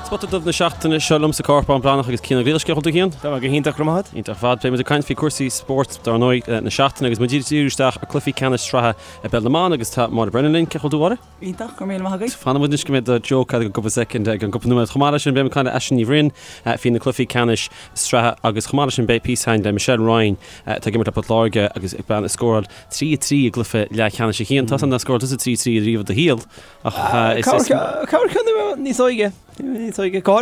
Spota Dubh na seachtaine seo liom sa Corpán Breathnach agus Cian Ó Griallais. Cén chaoi a bhfuil tú Cian? Tá mé go hiontach, go raibh maith agat. Iontach ar fad. Beidh muid ag caint faoi cúrsaí spóirt dár ndóigh na seachtaine agus muid ag díriú isteach ar cluichí ceannais sraithe i bpeil na mban agus tá Máire Brennan linn. Cén chaoi a bhfuil tú Mháire? Iontach, go raibh míle maith agat. Fanfaidh muid anois go mbeidh do joke agat i gcúpla soicind i gceann cúpla nóiméad. Chomh maith leis sin beidh muid ag caint le Aisling Ní Bhroin faoi na cluichí ceannais sraithe agus chomh maith leis sin beidh píosa againn le Michelle Ryan atá ag imirt le Port Láirge agus bean a scóráil 3 3 i gcluiche leathcheannais a Chian. Tá san nár scóráil tusa 3 3 riamh i do shaol. Ach is. Cabhair ceann níos óige, níos óige. Go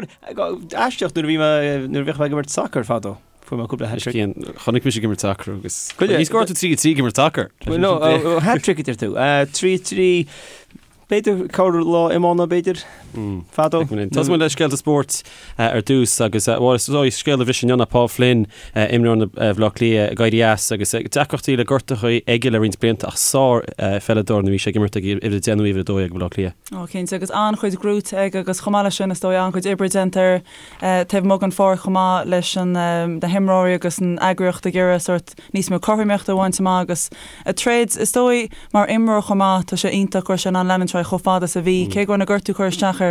aisteach nuair a bhí mé, nuair a bhíodh mé ag imirt sacair fadó, fuair mé cúpla hat-trick. Cian, chonaic mise ag imirt sacair agus. Ní scóráil tú 3 3 ag imirt sacair. No, hat-trick a deir tú. 3 3, b'fhéidir corr lá iomána b'fhéidir, fadó. Tosóidh muid le scéalta spóirt ar dtús agus bhuel is dóigh scéal a bhris inniu ná Paul Flynn, imreoir Bhaile Átha Cliath ag éirí as agus deacrachtaí le gortuithe aige le roinnt blianta ach sár pheileadóir nuair a bhí sé ag imirt ag uimhir 10 nó uimhir 12 ag Baile Átha Cliath. Ó cinnte agus an-chuid gnóite aige agus chomh maith leis sin is dóigh an-chuid oibre déanta air taobh amuigh den pháirc chomh maith leis an na himreoirí agus an eagraíocht ag iarraidh sórt níos mó cothromaíochta a bhaint amach agus ag troid is dóigh mar imreoir chomh maith tá sé iontach go raibh sé in ann leanúint ar aghaidh chomh fada is a bhí cé go raibh na gortú ag cur isteach air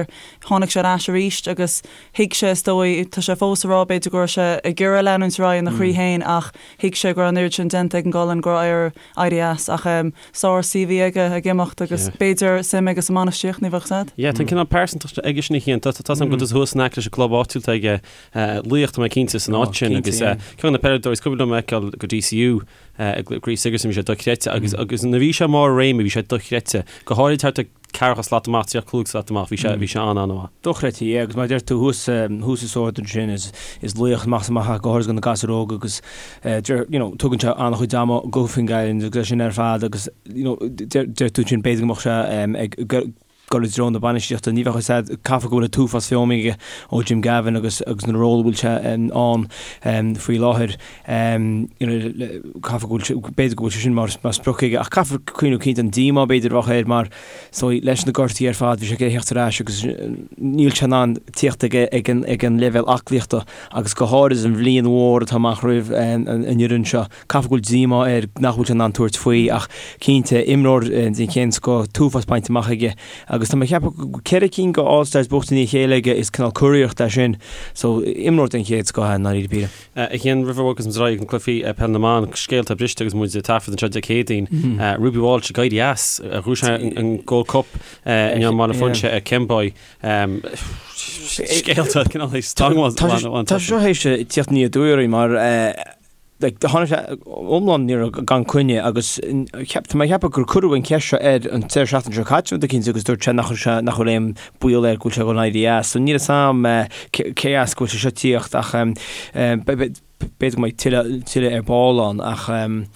Tháinig sé ar ais arís agus thuig sé, is dóigh, tá sé fós ag rá b'fhéidir go raibh sé ag iarraidh leanúint ar aghaidh ina chroí féin ach thuig sé go raibh an oiread sin déanta ag an gcolainn go raibh air éirí as. Ach sár CV aige ag imeacht agus b'fhéidir suim aige sa mbainistíocht, ní bheadh 's a'd. Yeah, tá an cineál pearsantacht aige sin a Chian. Tá 's a'm go bhfuil tusa thuas in aice leis an gclub áitiúil atá aige, Laoch, tá mé cinnte, san áit sin agus ceann de na peileadóirí is cuimhin liom a fheiceáil go DCU i gCraobh Sigerson bhí sé dochreidte agus agus nuair a bhí sé i mbarr a réime bhí sé dochreidte, go háirid thart ar ceathracha slat amach, 35 slat amach, bhí sé, bhí sé an-an-mhaith. Dochreidte, yeah, agus mar a deir tú thuas, thuas i Sord ansin, is, is laoch amach is amach é, go háirid do na gasúir óga agus deir, you know, tugann sé an-chuid ama go Finn Island agus é sin ar fad agus, you know, deir, deir tú ansin b'fhéidir go mbeadh sé ag dul i dtreo na bainistíochta, ní bheadh a fhios a'd, caithfidh go bhfuil an t-uafás feamainn aige ó Jim Gavin agus, agus na ról a bhfuil sé ann faoi láthair. Caithfidh go bhfuil sé, b'fhéidir go bhfuil sé sin mar sprioc aige ach caithfear cuimhneamh cinnte an díomá b'fhéidir a bheadh air mar so leis na gortaí ar fad bhí sé ag theacht ar ais agus níl sé in ann tíocht ag ag an ag an leibhéal aclaíochta agus go háirid an bhliain mhór atá amach roimh an fhoireann seo. Caithfidh go bhfuil díomá air nach bhfuil sé in ann tabhairt faoi ach cinnte imreoir den chéad scoth, t-uafás bainte amach aige agus tá mé ag ceapadh go bhfuil 4 cinn de All Stars buaite i ndiaidh a chéile aige is cineál curiarracht é sin so imreoir den chéad scoth é i ndáiríre píre. A Chian, roimh a bhogas muid ar aghaidh ag na cluichí peil na mban, scéalta briste agus muid ag taifead anseo Dé Céadaoin. Ruby Walsh ag éirí as, ghnóthaigh sí an Gold Cup inniu i mBaile Phúinse ar Kemboy. Scéalta cineál stangadh. Tá sé seo théis tíocht aniar aduaidh orainn mar like, tháinig sé iomlán ní raibh gan coinne agus cheap, tá mé ag ceapadh gur cuireadh an cheist seo air an deireadh seachtaine seo caite rud eicínt agus dúirt sé nach raibh sé, nach bhfuil aon baol air go bhfuil sé ag dul éirí as. So níl a fhios a'm cé as go bhfuil sé seo tíocht ach b'fhéidir go mbeidh tuilleadh, tuilleadh ar ball ann ach níl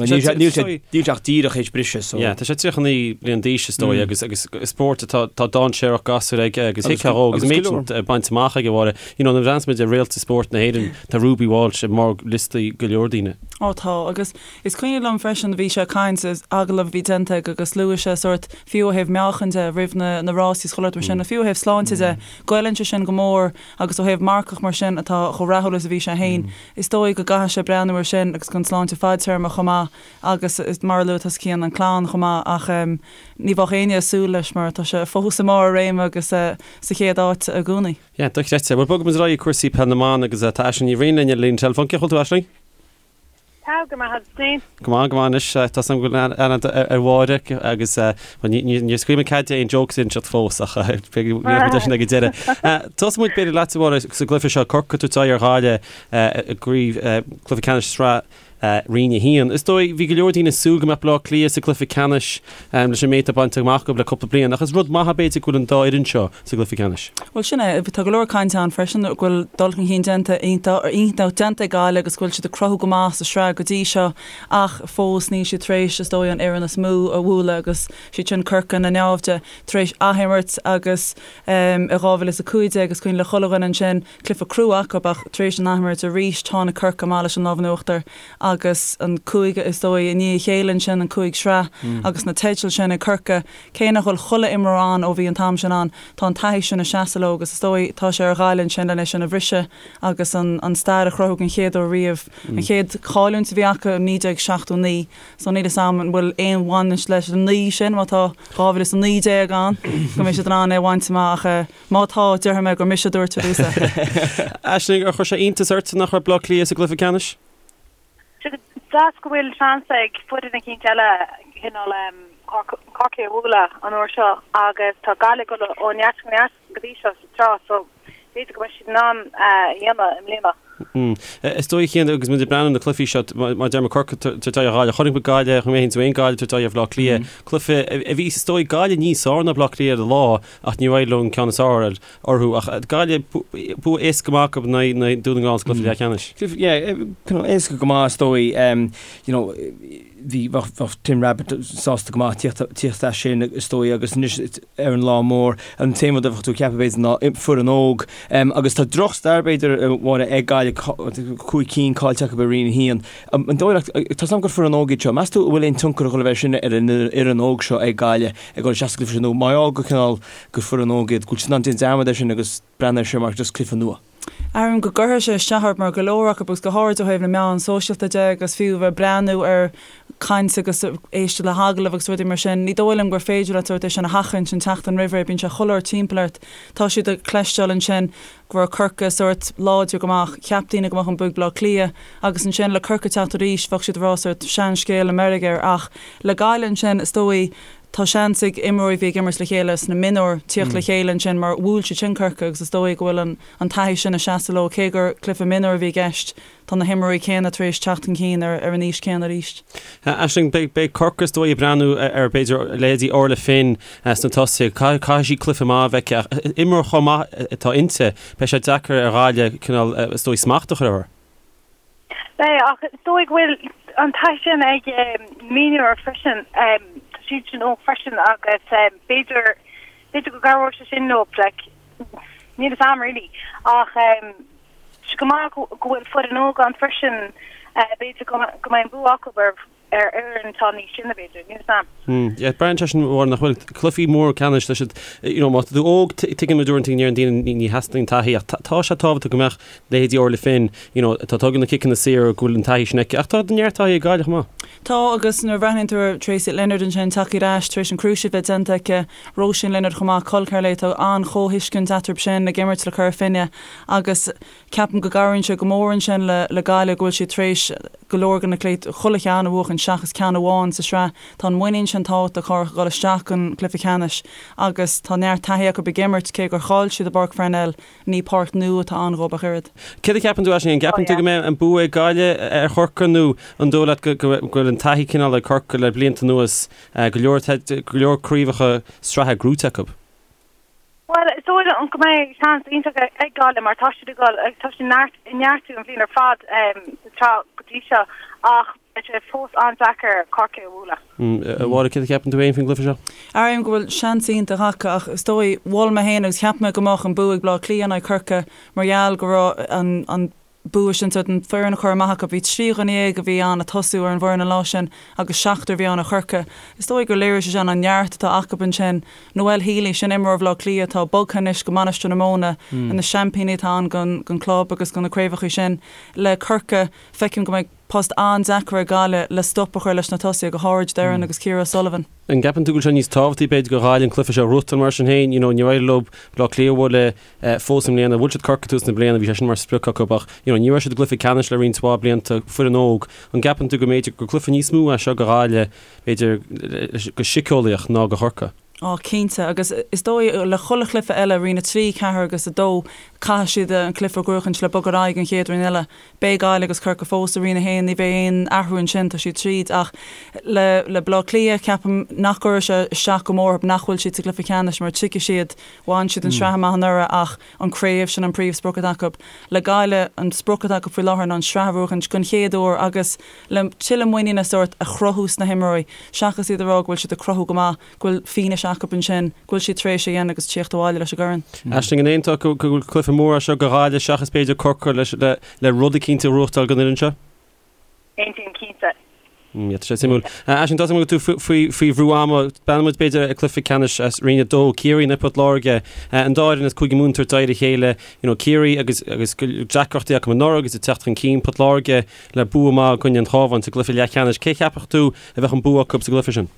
sé, níl sé, níl sé ach díreach théis briseadh so. Yeah, tá sé 39 bliain d'aois is dóigh agus, agus spórt atá, tá dainséarach gasúr aige agus thuigfeá dhó agus méid sin bainte amach aige Mháire. You know, nuair a bhreathnaíonn muid ar réalta spóirt na hÉireann, tá Ruby Walsh i mbarr liostaí go leor daoine. Ó tá, agus is cuimhin liom freisin, bhí sé ag caint, agallamh a bhí déanta aige agus luaigh sé sórt, fiú ó thaobh meáchain de, roimh na na rásaí is chuile shórt mar sin, fiú ó thaobh sláinte de, goilleann sé sin go mór agus ó thaobh marcach mar sin atá chomh rathúil is a bhí sé féin, is dóigh go gcaithfidh sé breathnú ar sin agus don sláinte fadtéarma chomh maith agus mar a luaigh tusa Cian, an clann chomh maith ach ní bheadh éinne ag súil leis mar tá sé fós i mbarr a réime agus sa chéad áit i gcónaí. Yeah, dochreidte. Bhuel, bogfaidh muid ar aghaidh ag cúrsaí peil na mban agus tá Aisling Ní Bhriain linn ar an líne teileafóin. Cén chaoi a bhfuil tú, Aisling? Tá go maith agus féin? Go maith, go maith anois. Tá 's agam go bhfuil aithne ar Mháire agus bhuel, ní, ní, níor scaoil mé cead di aon jokes a inseacht fós ach beidh muid leis sin ag an deireadh. Tosóidh muid b'fhéidir leat, a Mháire, sa gcluiche seo, Corcaigh ag tabhairt aghaidh ar Ghaillimh i gcraobh, cluiche ceannais sraith Roinn 1. Is dóigh, bhí go leor daoine ag súil go mbeadh Baile Átha Cliath sa gcluiche ceannais leis an méid atá bainte amach acu le cúpla bliain, ach is rud maith é b'fhéidir go bhfuil an dá fhoireann seo sa gcluiche ceannais. Bhuel, sin é. Tá go leor cainte ann freisin go bhfuil dul chun cinn déanta iontach iontach déanta ag Gaillimh agus go bhfuil siad ag cruthú go maith sa sraith go dtí seo ach fós níl siad tar éis, is dóigh, an fhoireann is mó a bhualadh agus siad sin Corcaigh na naimhde tar éis athimirt agus i 2015 is cuimhin le chuile dhuine ansin Cluiche crua acu ach tar éis an athimirt arís tháinig Corcaigh amach leis an lámh in uachtar. agus an cúig is dóigh i ndiaidh a chéile ansin, an cúig sraith agus na teidil sin ag Corcaigh. Cé nach bhfuil chuile imreoir ann ó bhí an t-am sin ann, tá an taithí sin ag seasamh leo agus is dóigh tá sé ar Ghaillimh ansin lena sin a bhriseadh agus an stair a chruthú den chéad uair riamh. An chéad chailliúint a bhí acu i 1979 so níl 'fhios a'm an bhfuil aon bhaint leis an 9 sin má tá 2019 ann go mbeidh siad in ann é a bhaint amach ach má tá déarfaidh mé gur mise a dúirt ar dtús é. Aisling, ar chuir sé iontas ort nach raibh Bleá Cliath sa gcluiche ceannais? Deas go bhfuil seans ag foireann eicínt eile cineál Corcaigh a bhualadh an uair seo agus tá Gaillimh ag dul ó neart go neart go dtí seo sa tsraith so b'fhéidir go mbeidh siad in ann é a dhéanamh i mbliana. Is dóigh chéanna agus muid ag breathnú ar na cluichí seo, mar deir mé Corcaigh ag tabhairt aghaidh ar Ghaillimh, chonaic muid Gaillimh, chonaic mé féin is Gaillimh ag tabhairt aghaidh ar Bhaile Átha Cliath, cluiche a bhí is dóigh Gaillimh níos fearr ná Baile Átha Cliath ar an lá ach níor éirigh leo an ceann is fearr a fháil orthu ach Gaillimh, bua éasca go maith acu in aghaidh Dún na nGall sa gcluiche leathcheannais. Yeah, éasca go maith is dóigh. You know, bhí, bheadh Tim Rabbitte sásta go maith tíocht as sin is dóigh agus anois ar an lá mór, an t-aon rud a bheadh tú ag ceapadh b'fhéidir ná foireann óg. Agus tá drochstair b'fhéidir a Mháire ag Gaillimh, cúig cinn caillte acu i Roinn 1. An dóigh leat, tá 's agam gur foireann óg iad seo, meas tú an bhfuil aon tionchar ag dul a bheith sin ar an fhoireann óg seo ag Gaillimh ag dul isteach sa gcluiche sin nó mar gheall go cineál gur foireann óg iad, go bhfuil siad in ann déanamh dearmad air sin agus breathnú air seo mar just cluiche nua. Airím go gcuirfidh sé isteach orthu mar go leor acu agus go háirid ó thaobh na meán sóisialta de agus fiú bheith ag breathnú ar chaint agus éisteacht le hagallaimh agus rudaí mar sin, ní dóigh liom gur féidir leat sórt é sin a sheachaint an tseachtain roimh ré, bíonn sé chuile uair timpeall ort. Tá siad ag cloisteáil ansin go raibh Corcaigh sórt láidir go maith, cheap daoine go mbeadh an bua ag Baile Átha Cliath agus ansin le Corcaigh teacht arís bheadh siad ag rá sórt seanscéal i meirg air ach le Gaillimh ansin is dóigh Tá seans ag imreoirí a bhí ag imirt le chéile sna mionúir tíocht le chéile ansin mar bhuail siad sin Corcaigh agus is dóigh go bhfuil an taithí sin ag seasamh leo. Cé gur cluiche mionúir a bhí i gceist, tá na himreoirí céanna tar éis teacht chun cinn ar an aois céanna arís. Aisling, beidh Corcaigh is dóigh ag breathnú ar b'fhéidir leithéidí Orla Finn sna tosaithe. Caithfidh sí cluiche maith a bheith aici ach imreoir chomh maith atá inti, beidh sé deacair ar Ghaillimh cineál is dóigh smacht a chur uirthi. Beidh, ach is dóigh go bhfuil an taithí sin ag mionúir freisin. Tá siad sin óg freisin agus b'fhéidir, b'fhéidir go gcabhróidh sé sin leo, like, níl fhios a'm really. Ach tá sé go maith go bhfuil foireann óg ann freisin, b'fhéidir go mbeidh an bua acu ar ar fhoireann atá níos sine, b'fhéidir, níl 'fhios a'm. Yeah, braitheann sé sin mar nach bhfuil cluichí mór ceannais tá siad, you know, má tá tú óg, tuigeann muid uaireanta go ndeireann daoine ní theastaíonn taithí ach tá sé tábhachtach go mbeadh leithéidí Orla Finn, you know, atá ag tógáil na ciceanna saora go bhfuil an taithí sin aici ach tá neart taithí ag Gaillimh chomh maith. Tá agus nuair a bhreathnaíonn tú ar Tracey Leonard ansin tagtha ar ais tar éis an cruciate bheith déanta aici, Róisín Leonard chomh maith, col ceathar léi, tá an-chomhthuiscint eatarthu sin ag imirt le Cora Finne agus Ceapaim go gcabhraíonn sé go mór ansin le Gaillimh go bhfuil siad tar éis go leor de na cluichí, chuile cheann a bhuachan seachas ceann amháin sa sraith. Tá an muinín sin tábhachtach cabhrach ag dul isteach don chluiche ceannais agus tá neart taithí acu ag imirt, cé gur chaill siad i bPáirc Pharnell, ní páirc nua atá ann dhóibh ach oiread. Céard a cheapann tú, Aisling, an gceapann tú go mbeidh an bua ag Gaillimh ar Chorcaigh nó an dóigh leat go bhfuil an taithí cineál ag Corcaigh le blianta anuas, go leor go leor craobhacha sraithe gnóthaithe acu? Bhuel, is dóigh liom go mbeidh seans iontach ag Gaillimh mar tá siad ag dul, tá siad ag neartú an bhliain ar fad sa tsraith go dtí seo ach beidh sé fós an-deacair Corcaigh a bhualadh. A Mháire, céard a cheapann tú féin faoin gcluiche seo? Airím go bhfuil seans iontach acu ach is dóigh, mhol mé féin agus cheap mé go mbeadh an bua ag Bleá Cliath in aghaidh Corcaigh mar gheall go raibh an bua sin sórt an foireann a chur amach acu. Bhí 13 dhuine a bhí ann ag tosú ar an bhfoireann an lá sin agus seachtar a bhí ann ó Chorcaigh. Is dóigh gur léirigh sé sin an neart atá acu ansin. Noelle Healy, sin imreoir Bhaile Átha Cliath atá bogtha anois go Mainistir na Móna, na seaimpíní atá ann don club agus do na craobhacha sin. Le Corcaigh, feicim go mbeidh post an-deacair ag Gaillimh le stop a chur leis na tosaithe, go háirid Doireann agus Ciara O'Sullivan. An gceapann tú go bhfuil sé níos tábhachtaí b'fhéidir do Ghaillimh an cluiche seo a ghnóthachtáil mar sin féin? You know, níor éirigh leo Baile Átha Cliath a bhualadh fós i mbliana. Bhuail siad Corcaigh tús na bliana, bhí sé sin mar sprioc acu ach you know ní raibh siad i gcluiche ceannais le roinnt mhaith blianta, foireann óg. An gceapann tú go mb'fhéidir gur cluiche níos mó é seo do Ghaillimh, b'fhéidir, go síceolaíoch ná do Chorcaigh? Á, cinnte, agus is dóigh le chuile chluiche eile, Roinn 3, 4 agus 2, caithfidh siad an cluiche a ghnóthachaint le bogadh ar aghaidh an chéad roinn eile. Beidh Gaillimh agus Corcaigh fós i Roinn 1, ní bheidh aon athrú ansin, tá siad tríd. Ach le le Baile Átha Cliath, ceapaim nach gcuirfidh sé isteach go mór orthu nach bhfuil siad sa gcluiche ceannais mar tuigfidh siad Bhain siad an sraith amach anuraidh ach an craobh, sin an príomhsprioc atá acu. Le Gaillimh, an sprioc atá acu faoi láthair ná an sraith a bhuachaint den chéad uair agus le tuilleadh muiníne sórt a chruthú sna himreoirí, seachas iad a rá go bhfuil siad ag cruthú go maith, go bhfuil fianaise acu ansin go bhfuil siad tar éis é a dhéanamh agus tíocht abhaile leis an gcorn. Aisling, an aontófá go bhfuil cluiche mór é seo do Ghaillimh seachas b'fhéidir Corcaigh le rud eicínt a ghnóthachtáil don fhoireann seo? Aontaím cinnte. Yeah, tá sé suimiúil. Aisling, tá a fhios agam go bhfuil tú faoi faoi bhrú ama. Breathnóidh muid b'fhéidir ar cluiche ceannais as Roinn 2, Ciarraí in aghaidh Port Láirge. An dá fhoireann as Cúige Mumhan ag tabhairt aghaidh ar a chéile. You know, Ciarraí agus agus deacrachtaí acu anuraidh agus ag teacht chun cinn. Port Láirge le bua maith i gcoinne an Chabháin sa gcluiche leathcheannais. Cé cheapfadh tú a bheadh an bua acu sa gcluiche sin?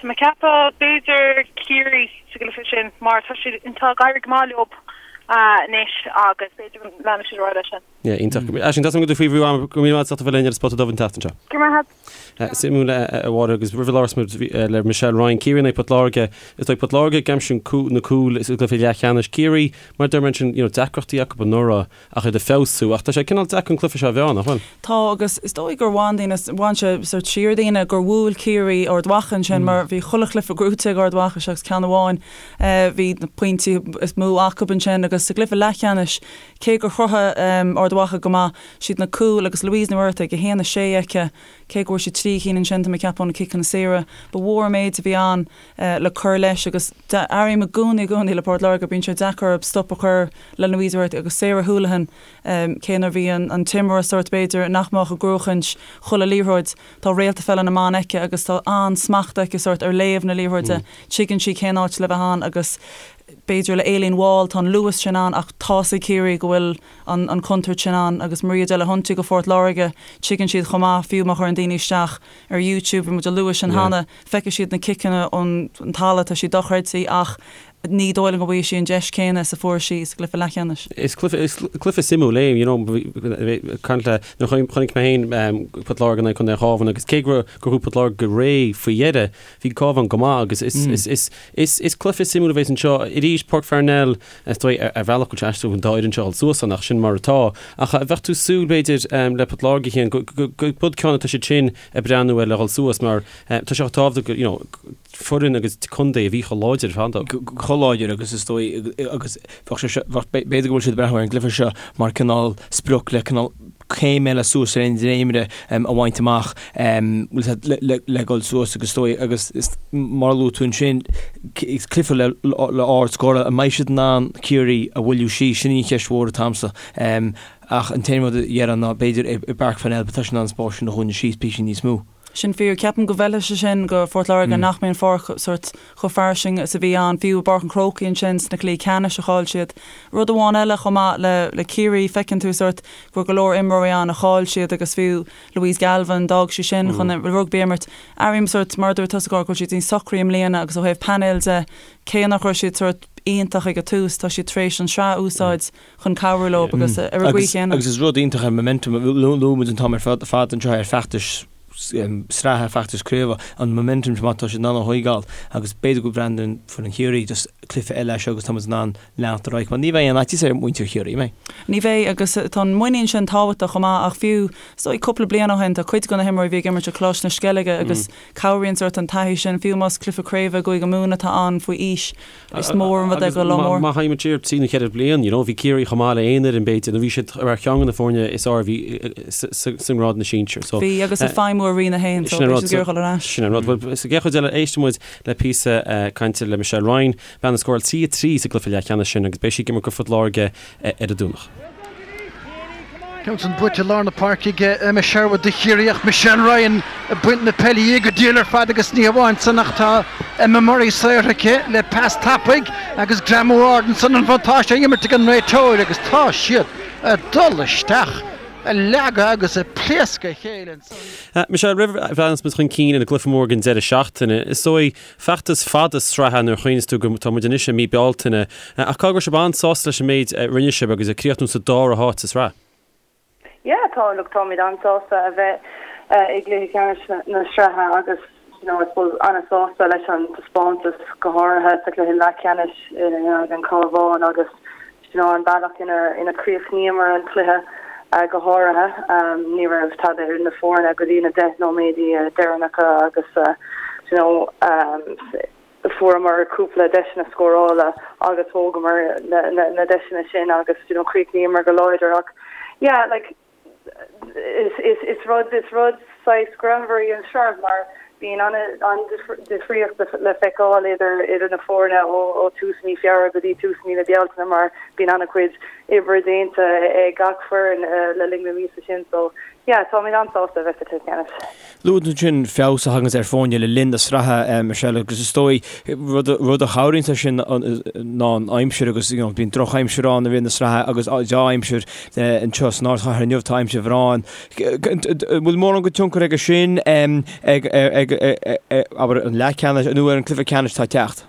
Tá mé ag ceapadh b'fhéidir Ciarraí sa gcluiche sin mar tá siad tá ag éirí go maith leo anois agus b'fhéidir go leanfaidh siad ar aghaidh leis sin. Yeah, iontach. Aisling, tá a fhios agam go bhfuil tú faoi bhrú ama, go raibh míle maith agat as ucht a bheith linn ar an Spota Dubh an tseachtain seo. Go raibh maith agat. Suimiúil a Mháire agus roimh a labhras muid le Michelle Ryan, Ciarraí in aghaidh Port Láirge, is dóigh Port Láirge ag aimsiú na cúil sa gcluiche leathcheannais. Ciarraí, mar a deir mé ansin, you know, deacrachtaí acu anuraidh ach iad ag feabhsú ach tá sé cineál deacair an cluiche seo a mheá, nach bhfuil? Tá agus is dóigh gur bhain daoine, bhain sé sort siar daoine gur bhuail Ciarraí Ard Mhacha ansin mar bhí chuile chluiche gnóite ag Ard Mhacha seachas ceann amháin. Bhí na pointí is mó acu ansin agus sa gcluiche leathcheannais Cé gur chruthaigh Ard Mhacha go maith, siad na cúil agus Louise Ní Mhuircheartaigh, 1, 6 aici, cé go bhfuair sí 3 chinn ansin, tá mé ag ceapadh ó na ciceanna saora, ba mhór an méid a bhí ann le cur leis agus airím i gcónaí i gcónaí le Port Láirge, bíonn sé deacair orthu stop a chur le Louise Ní Mhuircheartaigh agus Sarah Houlihan, cé nuair a bhí an t-imreoir sórt b'fhéidir nach mbeadh ag gnóchaint chuile liathróid, tá réalta pheile na mban aici agus tá an-smacht aici sórt ar léamh na liathróide, tuigeann sí cén áit le bheith ann agus B'fhéidir le Aileen Wall, tá an luas sin ann ach tá's ag Ciarraí go bhfuil an chontúirt sin ann agus Maria Delahunty go Phort Láirge, tuigeann siad chomh maith, fiú má chuireann daoine isteach ar YouTube, bhí muid ag lua sin cheana, feicfidh siad na ciceanna ón talamh, tá siad dochreidte ach ní dóigh liom go bhfaighidh sí an deis céanna is a fuair sí sa gcluiche leathcheannais. Is cluiche, is cluiche suimiúil é, you know, caint le, nuair a chonaic mé féin Port Láirge in aghaidh Contae an Chabháin agus cé go raibh Port Láirge go réidh faoi dheireadh, bhí Cabhán go maith agus is, is, is, is, is cluiche suimiúil a bheas anseo. Arís, Páirc Pharnell, is dóigh, ar, ar bhealach go bhfuil sé aisteach an dá fhoireann seo a dhul suas ann ach sin mar atá. Ach bheadh tú ag súil, b'fhéidir, le Port Láirge féin, go, go, go, gurb ceann atá siad sin ag breathnú air le dhul suas mar tá sé chomh tábhachtach go, you know, foireann agus contae a bhí chomh láidir ar fad. Chomh láidir agus is dóigh agus bheadh sé seo, bheadh, b'fhéidir go bhfuil siad ag breathnú ar an gcluiche seo mar cineál sprioc le cineál céim eile suas ar an dréimire a bhaint amach le dhul suas agus is dóigh agus mar a luaigh tú ansin is cluiche le le ard scór an mbeidh siad in ann Ciarraí a mhoilliú síos sin í an cheist mhór atá agamsa ach an t-aon rud a déarfainn ná b'fhéidir i bPáirc Pharnell tá siad in ann an spás sin a dhúnadh síos píosa níos mó. Sin fíor. Ceapaim go bhfeilfidh sé sin go Phort Láirge nach mbeidh an pháirc sórt chomh fairsing is a bhí ann, fiú i bPáirc an Chrócaigh ansin sna cluichí ceannais a chaill siad. Rud amháin eile chomh maith le le Ciarraí, feiceann tú sórt go raibh go leor imreoirí ann a chaill siad agus fiú Louise Galvin, d'fhág sí sin chun rugbaí a imirt. Airím sórt, mar a dúirt tusa, go bhfuil siad níos socraí i mbliana agus ó thaobh painéil de, cé nach raibh siad sórt iontach ag an tús, tá siad tar éis an sraith a úsáid chun cabhrú leo agus ar an gcaoi chéanna. Agus is rud iontach é momentum, luaigh muid an t-am ar fad anseo ar feachtais sraithe, feachtais craoibhe, an momentum má tá siad in ann a thóigeáil agus b'fhéidir go mbreathnaíonn foireann Chiarraí just cluiche eile é seo agus tá muid in ann leanacht ar aghaidh mar ní bheidh aon fhaitíos ar mhuintir Chiarraí, an mbeidh? Ní bheidh agus tá an muinín sin tábhachtach chomh maith ach fiú is dóigh cúpla bliain ó shin tá cuid de na himreoirí a bhí ag imirt i Coláiste na Sceilge agus cabhraíonn sórt an taithí sin fiú más cluiche craoibhe i gCúige Mumhan atá ann faoi aois Is mór an rud é go lá mór. Má théimid siar trí nó cheithre bliain, you know, bhí Ciarraí chomh maith le aon fhoireann b'fhéidir, nó bhí siad ar cheann de na foirne is fearr a bhí sa ngrád na sinsear. So, Bhí, agus ag feidhmiú i Roinn 1, so bhí siad ag iarraidh dul ar ais. Sin an rud. Bhuel, sa gcéad chuid eile, éistfidh muid le píosa cainte le Michelle Ryan, bean a scóráil 3-3 sa gcluiche leathcheannais sin agus beidh sí ag imirt go Phort Láirge ar an Domhnach. Ceann san buaite i lár na páirce ag Emma Sherwood do Chiarraí ach Michelle Ryan ag baint na peile dhi go diail ar fad agus ní hamháin san ach tá Emma Murray saortha aici le pas tapaidh agus greamú ard ansan an bhuntáiste á imirt ag an réiteoir agus tá siad ag dul isteach ag leagadh agus ag pléascadh a chéile ansan. Michelle, roimh a bhreathnas muid chun cinn ar an gcluiche mór den deireadh seachtaine, is dóigh Feachtas fada sraithe nuair a chuimhníos tú go tá muid anois i mí Bealtaine, ach caithfidh go raibh sibh an-sásta leis an méid a rinne sibh agus ag críochnú sa dara háit sa sraith. Yeah, tá, look, táimid an-sásta a bheith i gcluiche ceannais na sraithe agus, you know, I suppose an-sásta leis an taispeántas go háirithe sa chluiche leathcheannais in aghaidh an Chabháin agus You know, an bealach ina chríochnaíomar an cluiche go háirithe. Ní raibh tada idir na foirne go dtí na 10 nóiméadaí deireanacha agus you know, fuaireamar cúpla deiseanna scórála agus thógamar na deiseanna sin agus you know, chríochnaíomar go láidir ach yeah, like, Is rud is rud saghas greannmhar í an tsraith mar bíonn an-difríocht le feiceáil idir idir na foirne ó tús mí Feabhra go dtí tús mí na Bealtaine mar bíonn an-chuid oibre déanta ag gach foireann le linn na míosa sin so. Yeah, táimid an-sásta a bheith sa chluiche ceannais. Luaigh tú ansin feabhas a thaganns ar foirne le linn na sraithe, Michelle, agus is dóigh rud rud a chabhraíonns leis sin ná an aimsir agus you know bíonn drochaimsir ann i rith na sraithe agus dea-aimsir anseo san ardchathair inniu, tá aimsir bhreá ann. An bhfuil mórán de tionchar aige sin ag ag abair an leathcheannais nó ar an cluiche ceannais atá ag teacht?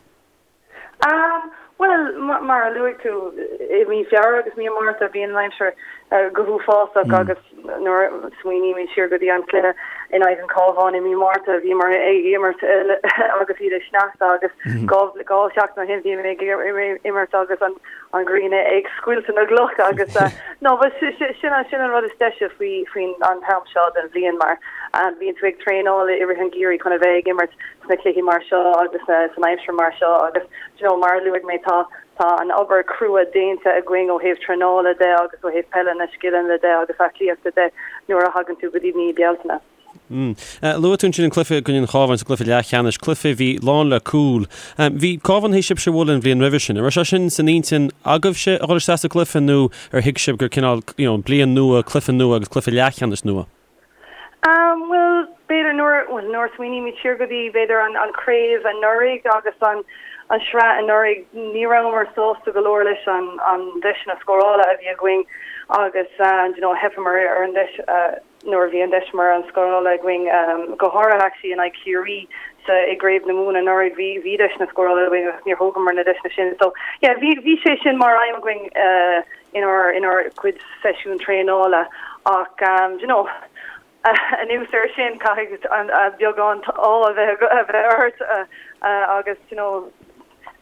Bhuel, mar a luaigh tú, i mí Feabhra agus mí Márta bíonn an aimsir go huafásach agus nuair a smaoinímid siar go dtí an cluiche in aghaidh an Chabháin i mí Márta, bhíomar ag imirt agus iad ag sneachta agus 2 sheachtain ó shin bhí mé ag imirt agus an ghrian ag scoilteadh na gcloch agus no but sin sin an rud is deise faoi faoin an t-am seo den bhliain mar bíonn tú ag traenáil i rith an gheimhridh chun a bheith ag imirt sna cluichí mar seo agus san aimsir mar seo agus you know mar a luaigh mé tá tá an obair crua déanta againn ó thaobh traenála de agus ó thaobh peile na scileanna de agus aclaíochta de nuair a thagann tú go dtí mí Bealtaine. Mm. Luaigh tú ansin an cluiche i gcoinne an Chabháin sa gcluiche leathcheannais, cluiche a bhí lán le cúil. Bhí Cabhán théis sibhse a bhualadh an bhliain roimhe sin. An raibh sé sin san intinn agaibhse a dhul isteach sa gcluiche nó ar thuig sibh gur cineál you know, bliain nua, cluiche nua agus cluiche leathcheannais nua? Bhuel, b'fhéidir nuair, bhuel, nuair a smaoinímid siar go dtí, b'fhéidir, an, an chraobh anuraidh agus an, an sraith anuraidh, ní rabhamar sásta go leor leis an, an deiseanna scórála a bhí againn agus, you know, theipeamar ar an deis, nuair a bhí an deis mar an scórála againn, go háirithe actually in aghaidh Chiarraí sa, i gCraobh na Mumhan anuraidh, bhí, bhí deiseanna scórála againn agus níor thógamar na deiseanna sin. So, yeah, bhí, bhí sé sin mar aidhm againn, inár inár gcuid seisiún traenála ach do you know anuas air sin caithfidh an beagán ádh a bheith a bheith ort agus do you know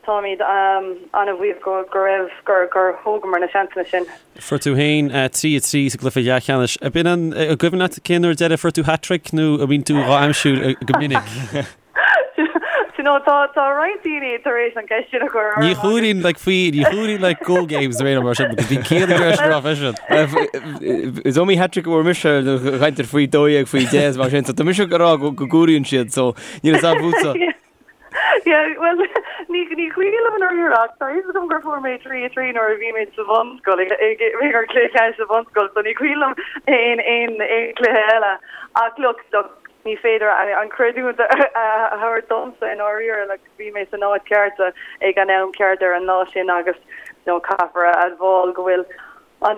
táimid an-bhuíoch go go raibh gur gur thógamar na seansanna sin. Fuair tú féin 3 3 sa gcluiche leathcheannais. Ab in an an gcuimhin leat cén uair deiridh a fuair tú hat-trick nó an mbíonn tú dhá aimsiú go minic? Do you know, tá tá roinnt daoine tar éis an cheist sin a chur orm Ní chuirín like faoi, ní chuirín like go games ar aon mar sin because bhí Cian ag iarraidh sin a rá freisin. Is iomaí hat-trick a bhfuair mise a chaintear faoi 12 faoi 10 is mar sin, so tá mise ag rá go go gcomhairíonn siad, so níl a fhios agam fútsa. Yeah, well, ní ní cuimhin liom i ndáiríre ach tá a fhios agam gur fuair mé 3 3 nuair a bhí mé sa bhunscoil ag ag ag cluiche ceannais sa bhunscoil, so ní cuimhin liom aon aon aon cluiche eile. Ach look, look, Ní féidir an creidiúint a thabhairt domsa i ndáiríre, like bhí mé san áit ceart ag an am ceart ar an lá sin agus you know caithfear a admháil go bhfuil an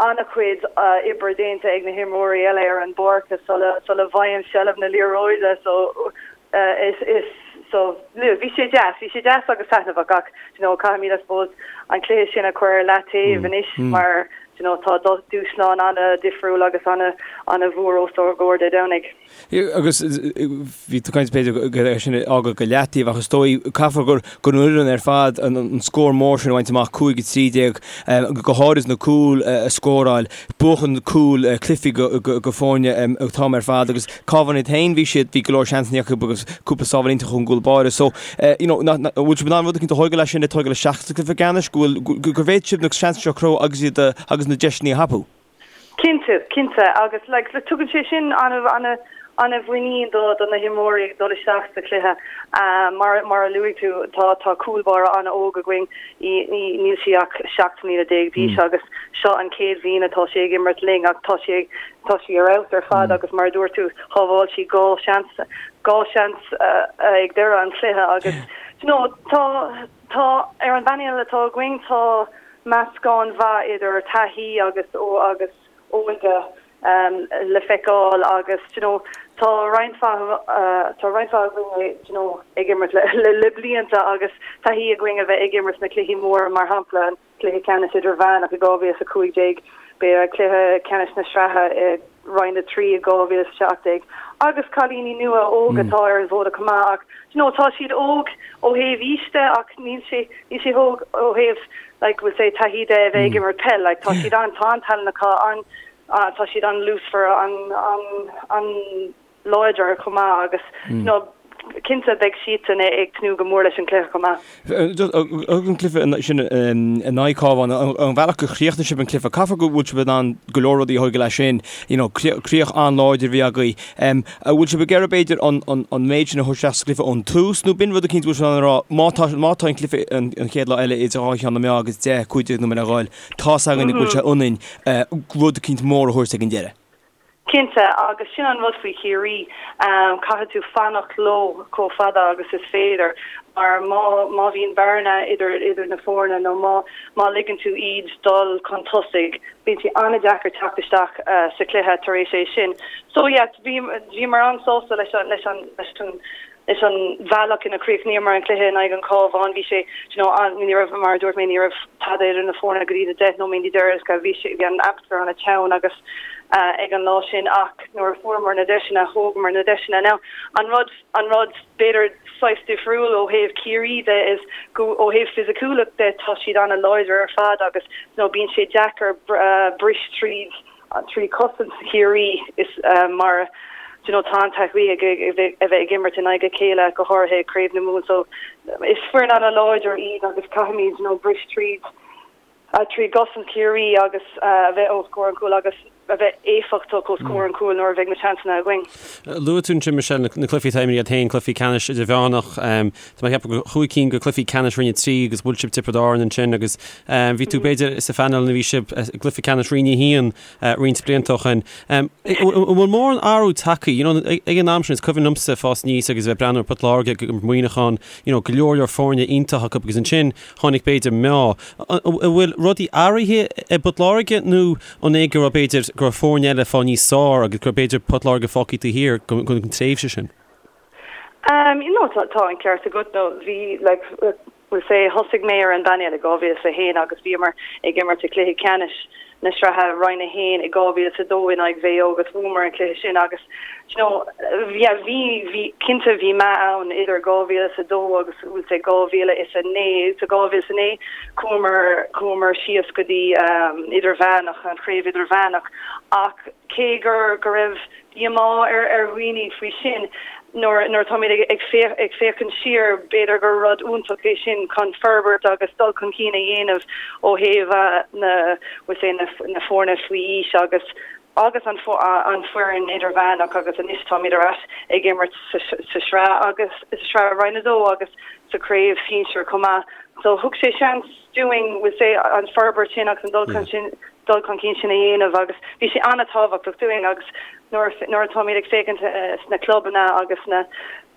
an-chuid oibre déanta ag na himreoirí eile ar an bpáirc sula sula bhfaighim seilbh na liathróide so is is so bhí sé deas, bhí sé deas agus taitneamhach ach you know caithfimid I suppose an cluiche sin a chur ar leataobh anois mar you know, tá dúshlán an-difriúil agus an-mhór os ár gcomhair Dé Domhnaigh. Agus bhí tú ag caint b'fhéidir go é sin a fhágáil go leataobh ach is dóigh caithfear gur gur an fhoireann ar fad an scór mór sin a bhaint amach 5-13 go háirid na cúil a scóráil buachan cúil cluichí go foirne an t-am ar fad agus Cabhán iad féin bhí siad bhí go leor seansanna acu agus cúpla sábháil iontach ón gcúl báire so you know an bhfuil sibh in ann rud eicínt a thógáil as sin ag tógáil isteach sa cluiche ceannais go bhfuil gur bhféadfadh sibh na seansanna seo a chruthú agus iad agus na deiseanna a thapú? Cinnte, cinnte agus like tugann sé sin an-mhuinín do do na himreoirí ag dul isteach sa chluiche. Mar mar a luaigh tú tá tá cúl báire an-óg againn, í níl sí ach 17 mbliana d'aois agus seo an chéad bhliain atá sí ag imirt linn ach tá sí ag Tá sí ar fheabhas ar fad agus mar a dúirt tú, shábháil sí 2 seans, 2 seans ag deireadh an chluiche agus you know tá, tá, ar an bpainéal atá againn tá meascán mhaith idir taithí agus agus óige le feiceáil agus you know tá roinnt mhaith, tá roinnt mhaith againn you know ag imirt le le blianta agus taithí againn a bheith ag imirt sna cluichí móra mar shampla an Cluiche Ceannais Idirmheánach i 2015, b'fhéidir Cluiche Ceannais na Sraithe i Roinn 3 i 2017 agus cailíní nua óga atá ar an bhfód chomh maith ach you know tá siad óg ó thaobh aois de ach níl sé níl siad óg ó thaobh like we'll say taithí de a bheith ag imirt peil like tá siad an tá an-tallann acu an tá siad an-luasmhar an an an láidir chomh maith agus you know cinnte beidh siadsan ag tnúth go mór leis an cluiche chomh maith. An cluiche sin in aghaidh Cabhán, an bhealach gur chríochnaigh sibh an cluiche, caithfear go bhfuil sibh in ann go leor rudaí a thógáil as sin, you know críoch an-láidir a bhí agaibh. An bhfuil sibh ag iarraidh b'fhéidir an méid sin a thabhairt isteach sa chluiche ón tús nó b'in rud eicínt go bhfuil sibh in ann a rá má tá má tá an cluiche an chéad lá eile idir dhá cheann na meá agus 10, 15 nóiméad le dhul, tá's againn go bhfuil sé ionainn rud eicínt mór a thabhairt ag an deireadh. Cinnte, agus sin an rud faoi Chiarraí, caithfidh tú fanacht leo chomh fada agus is féidir mar má má bhíonn bearna idir idir na foirne nó má má ligeann tú iad dul chun tosaigh, bíonn sé an-deacair teacht isteach sa chluiche tar éis é sin. So yeah, bhí bhíomar an-sásta leis an leis an leis an leis an bhealach ina chríochnaíomar an cluiche in aghaidh an Chabháin. Bhí sé, you know, an, ní raibh, mar a dúirt mé, ní raibh tada idir na foirne go dtí na 10 nóiméad deireanacha. Bhí sé, bhí an atmaisféar an-teann agus ag an lá sin ach nuair a fuaireamar na deiseanna, thógamar na deiseanna. Now, an rud, an rud b'fhéidir saghas difriúil ó thaobh Ciarraí de is go, ó thaobh fisiciúlacht de, tá siad an-láidir ar fad agus, you know, bíonn sé deacair bris tríd 3 cosaint Chiarraí is mar do you know tá an-taithí ag a bheith ag imirt in aghaidh a chéile go háirithe i gCraobh na Mumhan so is foireann an-láidir iad agus caithfimid you know bris tríd trí gcosaint Chiarraí agus a bheith os comhair an chúil agus a bheith éifeachtach os comhair an chúil nuair a bheidh na seansanna againn. Luaigh tú ansin Michelle na cluichí atá imeartha agat féin, cluichí ceannais idirmheánach, tá mé ag ceapadh gur chúig cinn de chluichí ceannais Roinn 3 agus bhuail sibh Tiobraid Árann ansin agus bhí tú b'fhéidir sa phainéal nuair a bhí sibh i gcluiche ceannais Roinn 1 roinnt blianta ó shin. An bhfuil mórán athrú tagtha, you know, ag an am sin is cuimhin liomsa fás aníos agus a bheith ag breathnú ar Port Láirge ag imirt Muineachán, you know, go leor leor foirne iontach acu agus ansin tháinig b'fhéidir meath. An bhfuil rudaí athraithe i bPort Láirge nó an é go raibh b'fhéidir go raibh foirne eile ag fáil níos fearr agus go raibh b'fhéidir Port Láirge fágtha taobh thiar den tréimhse sin? No, tá an ceart agat. No, bhí, like, we'll say, thosaigh mé ar an bpainéal i 2001 agus bhíomar ag imirt i gcluiche ceannais na sraithe Roinn 1 i 2002 in aghaidh Mhaigh Eo agus bhuamar an cluiche sin agus, you know, yeah, bhí, bhí, cinnte bhí meath ann idir 2002 agus, we'll say, 2009. Sa 2009 chuamar, chuamar síos go dtí idirmheánach, an chraobh idirmheánach ach cé gur, go raibh díomá ar ar dhaoine faoi sin. Nuair nuair atáimid ag ag féach ag féachaint siar, b'fhéidir gur rud iontach é sin chun forbairt agus dul chun cinn a dhéanamh ó thaobh na we'll say na na foirne faoi aois agus agus an an foireann idirmheánach agus anois táimid ar ais ag imirt sa sa sraith agus sa sraith Roinn 2 agus sa chraobh sinsir chomh maith. So thug sé seans dúinn we'll say an forbairt sin agus an dul chun sin dul chun cinn sin a dhéanamh agus bhí sé an-tábhachtach dúinn agus nuair nuair atáimid ag féachaint sna clubanna agus na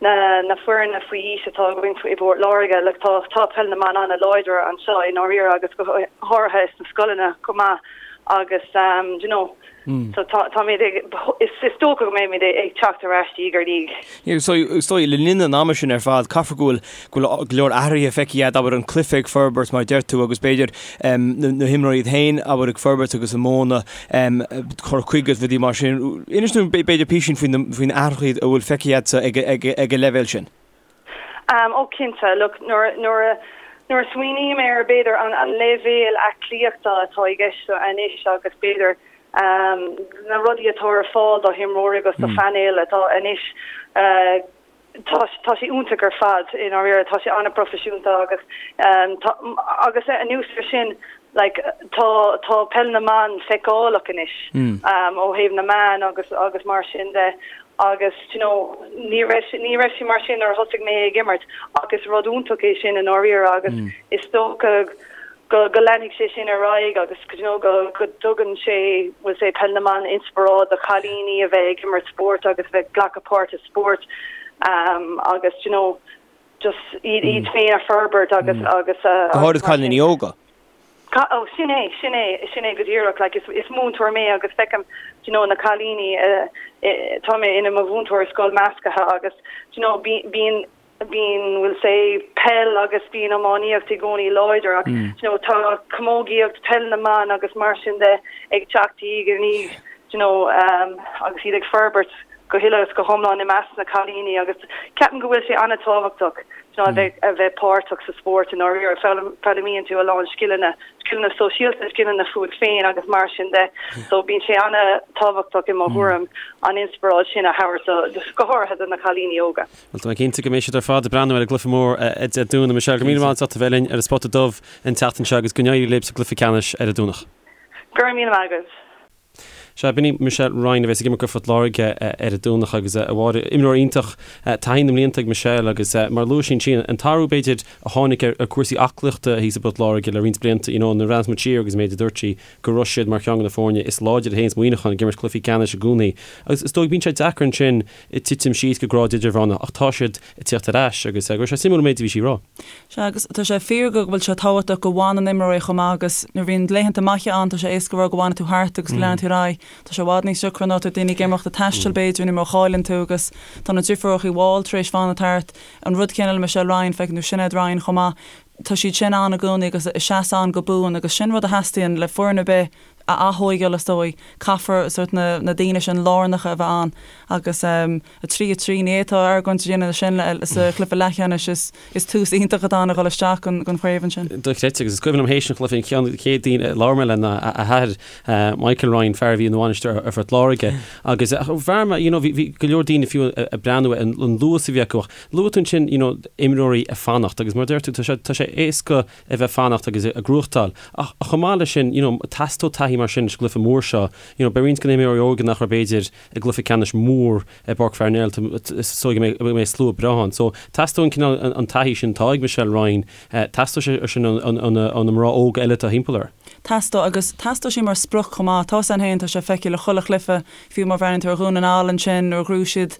na na foirne faoi aois atá againn i bPort Láirge like tá tá peil na mban an-láidir anseo i ndáiríre agus go háirithe sna scoileanna chomh maith agus um, you know so tá táimid ag is is dócha go mbeimid ag teacht ar ais diaidh ar ndiaidh. Is dóigh, le linn an ama sin ar fad, caithfidh go bhfuil go bhfuil go leor athruithe feicthe agat, abair, an cluiche ag forbairt mar a deir tú agus b'fhéidir na himreoirí iad féin, abair, ag forbairt agus a modhanna cur chuige agus rudaí mar sin. Inis dúinn b'fhéidir písín faoi faoi na athruithe a bhfuil feicthe agatsa ag ag an leibhéal sin. Ó cinnte, look, nuair nuair a nuair a smaoiním ar b'fhéidir an an leibhéal aclaíochta atá i gceist anois agus b'fhéidir na rudaí atá ar fáil do himreoirí agus do phainéil atá anois tá tá sé iontach ar fad i ndáiríre tá sé an-phroifisiúnta agus tá agus anuas ar sin like tá tá peil na mban feiceálach anois ó thaobh na meán agus agus mar sin de agus you know ní raibh ní raibh sé mar sin nuair a thosaigh mé ag imirt ach is rud iontach é sin i ndáiríre agus is dócha go go leanfaidh sé sin ar aghaidh agus you know go go dtugann sé we'll say peil na mban inspioráid do chailíní a bheith ag imirt spóirt agus a bheith ag glacadh páirt i spórt um, agus you know just iad iad féin a forbairt agus agus a Go háirid cailíní óga. Ó sin é, sin é, sin é go díreach like is is múinteoir mé agus feicim you know na cailíní uh, tá mé ina mo mhúinteoir i scoil measctha agus you know bíonn bíonn we'll say peil agus bíonn iománaíocht i gcónaí láidir ach you know tá camógaíocht, peil na mban agus mar sin de ag teacht diaidh ar ndiaidh you know um, agus iad ag forbairt go huile is go hiomlán i measc na cailíní agus ceapaim go bhfuil sé an-tábhachtach you know, a bheith a bheith páirteach sa spórt i ndáiríre foghlaimíonn tú a lán scileanna scileanna sóisialta, scileanna fút féin agus mar sin de. So bíonn sé an-tábhachtach i mo thuairim an inspioráid sin a thabhairt go háirithe do na cailíní óga. Bhuel, tá mé cinnte go mbeidh siad ar fad ag breathnú ar an gcluiche mór Dé Domhnaigh. Michelle, go raibh míle maith agat as ucht a bheith linn ar an Spota Dubh an tseachtain seo agus go n-éirí libh sa gcluiche ceannais ar an Domhnach. Go raibh míle maith agat. Sea, b'in í Michelle Ryan a bheas ag imirt do Phort Láirge ar an Domhnach agus a Mháire, imreoir iontach, taithí na mblianta ag Michelle agus mar a luaigh sí ansin, an t-athrú b'fhéidir a tháinig ar chúrsaí aclaíochta thíos i bPort Láirge le roinnt blianta, you know, nuair a bhreathnaíos muid siar agus an méid a dúirt sí go raibh siad mar cheann de na foirne is láidre a théanns Muineachán ag imirt cluichí ceannais i gcónaí agus is dóigh bíonn sé deacair ansin titim síos go grád idirmheánach ach tá siad ag tíocht ar ais agus go raibh sé suimiúil an méid a bhí sí a rá. Sea, agus tá sé fíor go bhfuil sé tábhachtach go bhfanann imreoirí chomh maith agus nuair a bhíonn laethanta maithe ann tá sé éasca a rá go bhfanfaidh tú thart agus go leanfaidh tú ar aghaidh. Tá sé i bhfad níos deacra nuair atá daoine ag imeacht ag taisteal b'fhéidir nó má chailleann tú agus tá na deirfiúracha Wall tar éis fanacht thart. An rud céanna le Michelle Ryan, feiceann tú Sinéad Ryan chomh maith. Tá siad sin ann i gcónaí agus ag seasamh ann go buan agus sin rud a theastaíonn le foireann ar bith a athógáil is dóigh. Caithfear sórt na na daoine sin lárnacha a bheith ann agus 3, 3, ní fhéadfá argóint a dhéanamh sin sa chluiche leathcheannais is is tús iontach atá ann a dhul isteach don don chraobh ansin. Dochreidte agus is cuimhin liom théis an chluiche an ceann de chéad daoine a labhair mé le ná a athair Michael Ryan, fear a bhí ina bhainisteoir ar Phort Láirge agus bhí mé you know bhí bhí go leor daoine fiú ag breathnú ar an luas a bhí acu ach luaigh tú ansin you know imreoirí ag fanacht agus mar a deir tú tá sé tá sé éasca a bheith fanacht agus ag gnóthachtáil. Ach chomh maith leis sin, you know, teastóidh taithí mar sin sa gcluiche mór seo. You know, beidh roinnt de na himreoirí óga nach raibh b'fhéidir i gcluiche ceannais mór i bPáirc Pharnell, is dóigh go mbeidh slua breá ann. So, teastóidh an cineál, an taithí sin atá ag Michelle Ryan, teastóidh sé sin ó na mná óga eile atá thimpeall uirthi. Teastóidh, agus teastóidh sí mar sprioc chomh maith. Tá san féin, tá sé feicthe le chuile chluiche, fiú má bhreathnaíonn tú ar Dhún na nGall ansin nuair a ghnóthaigh siad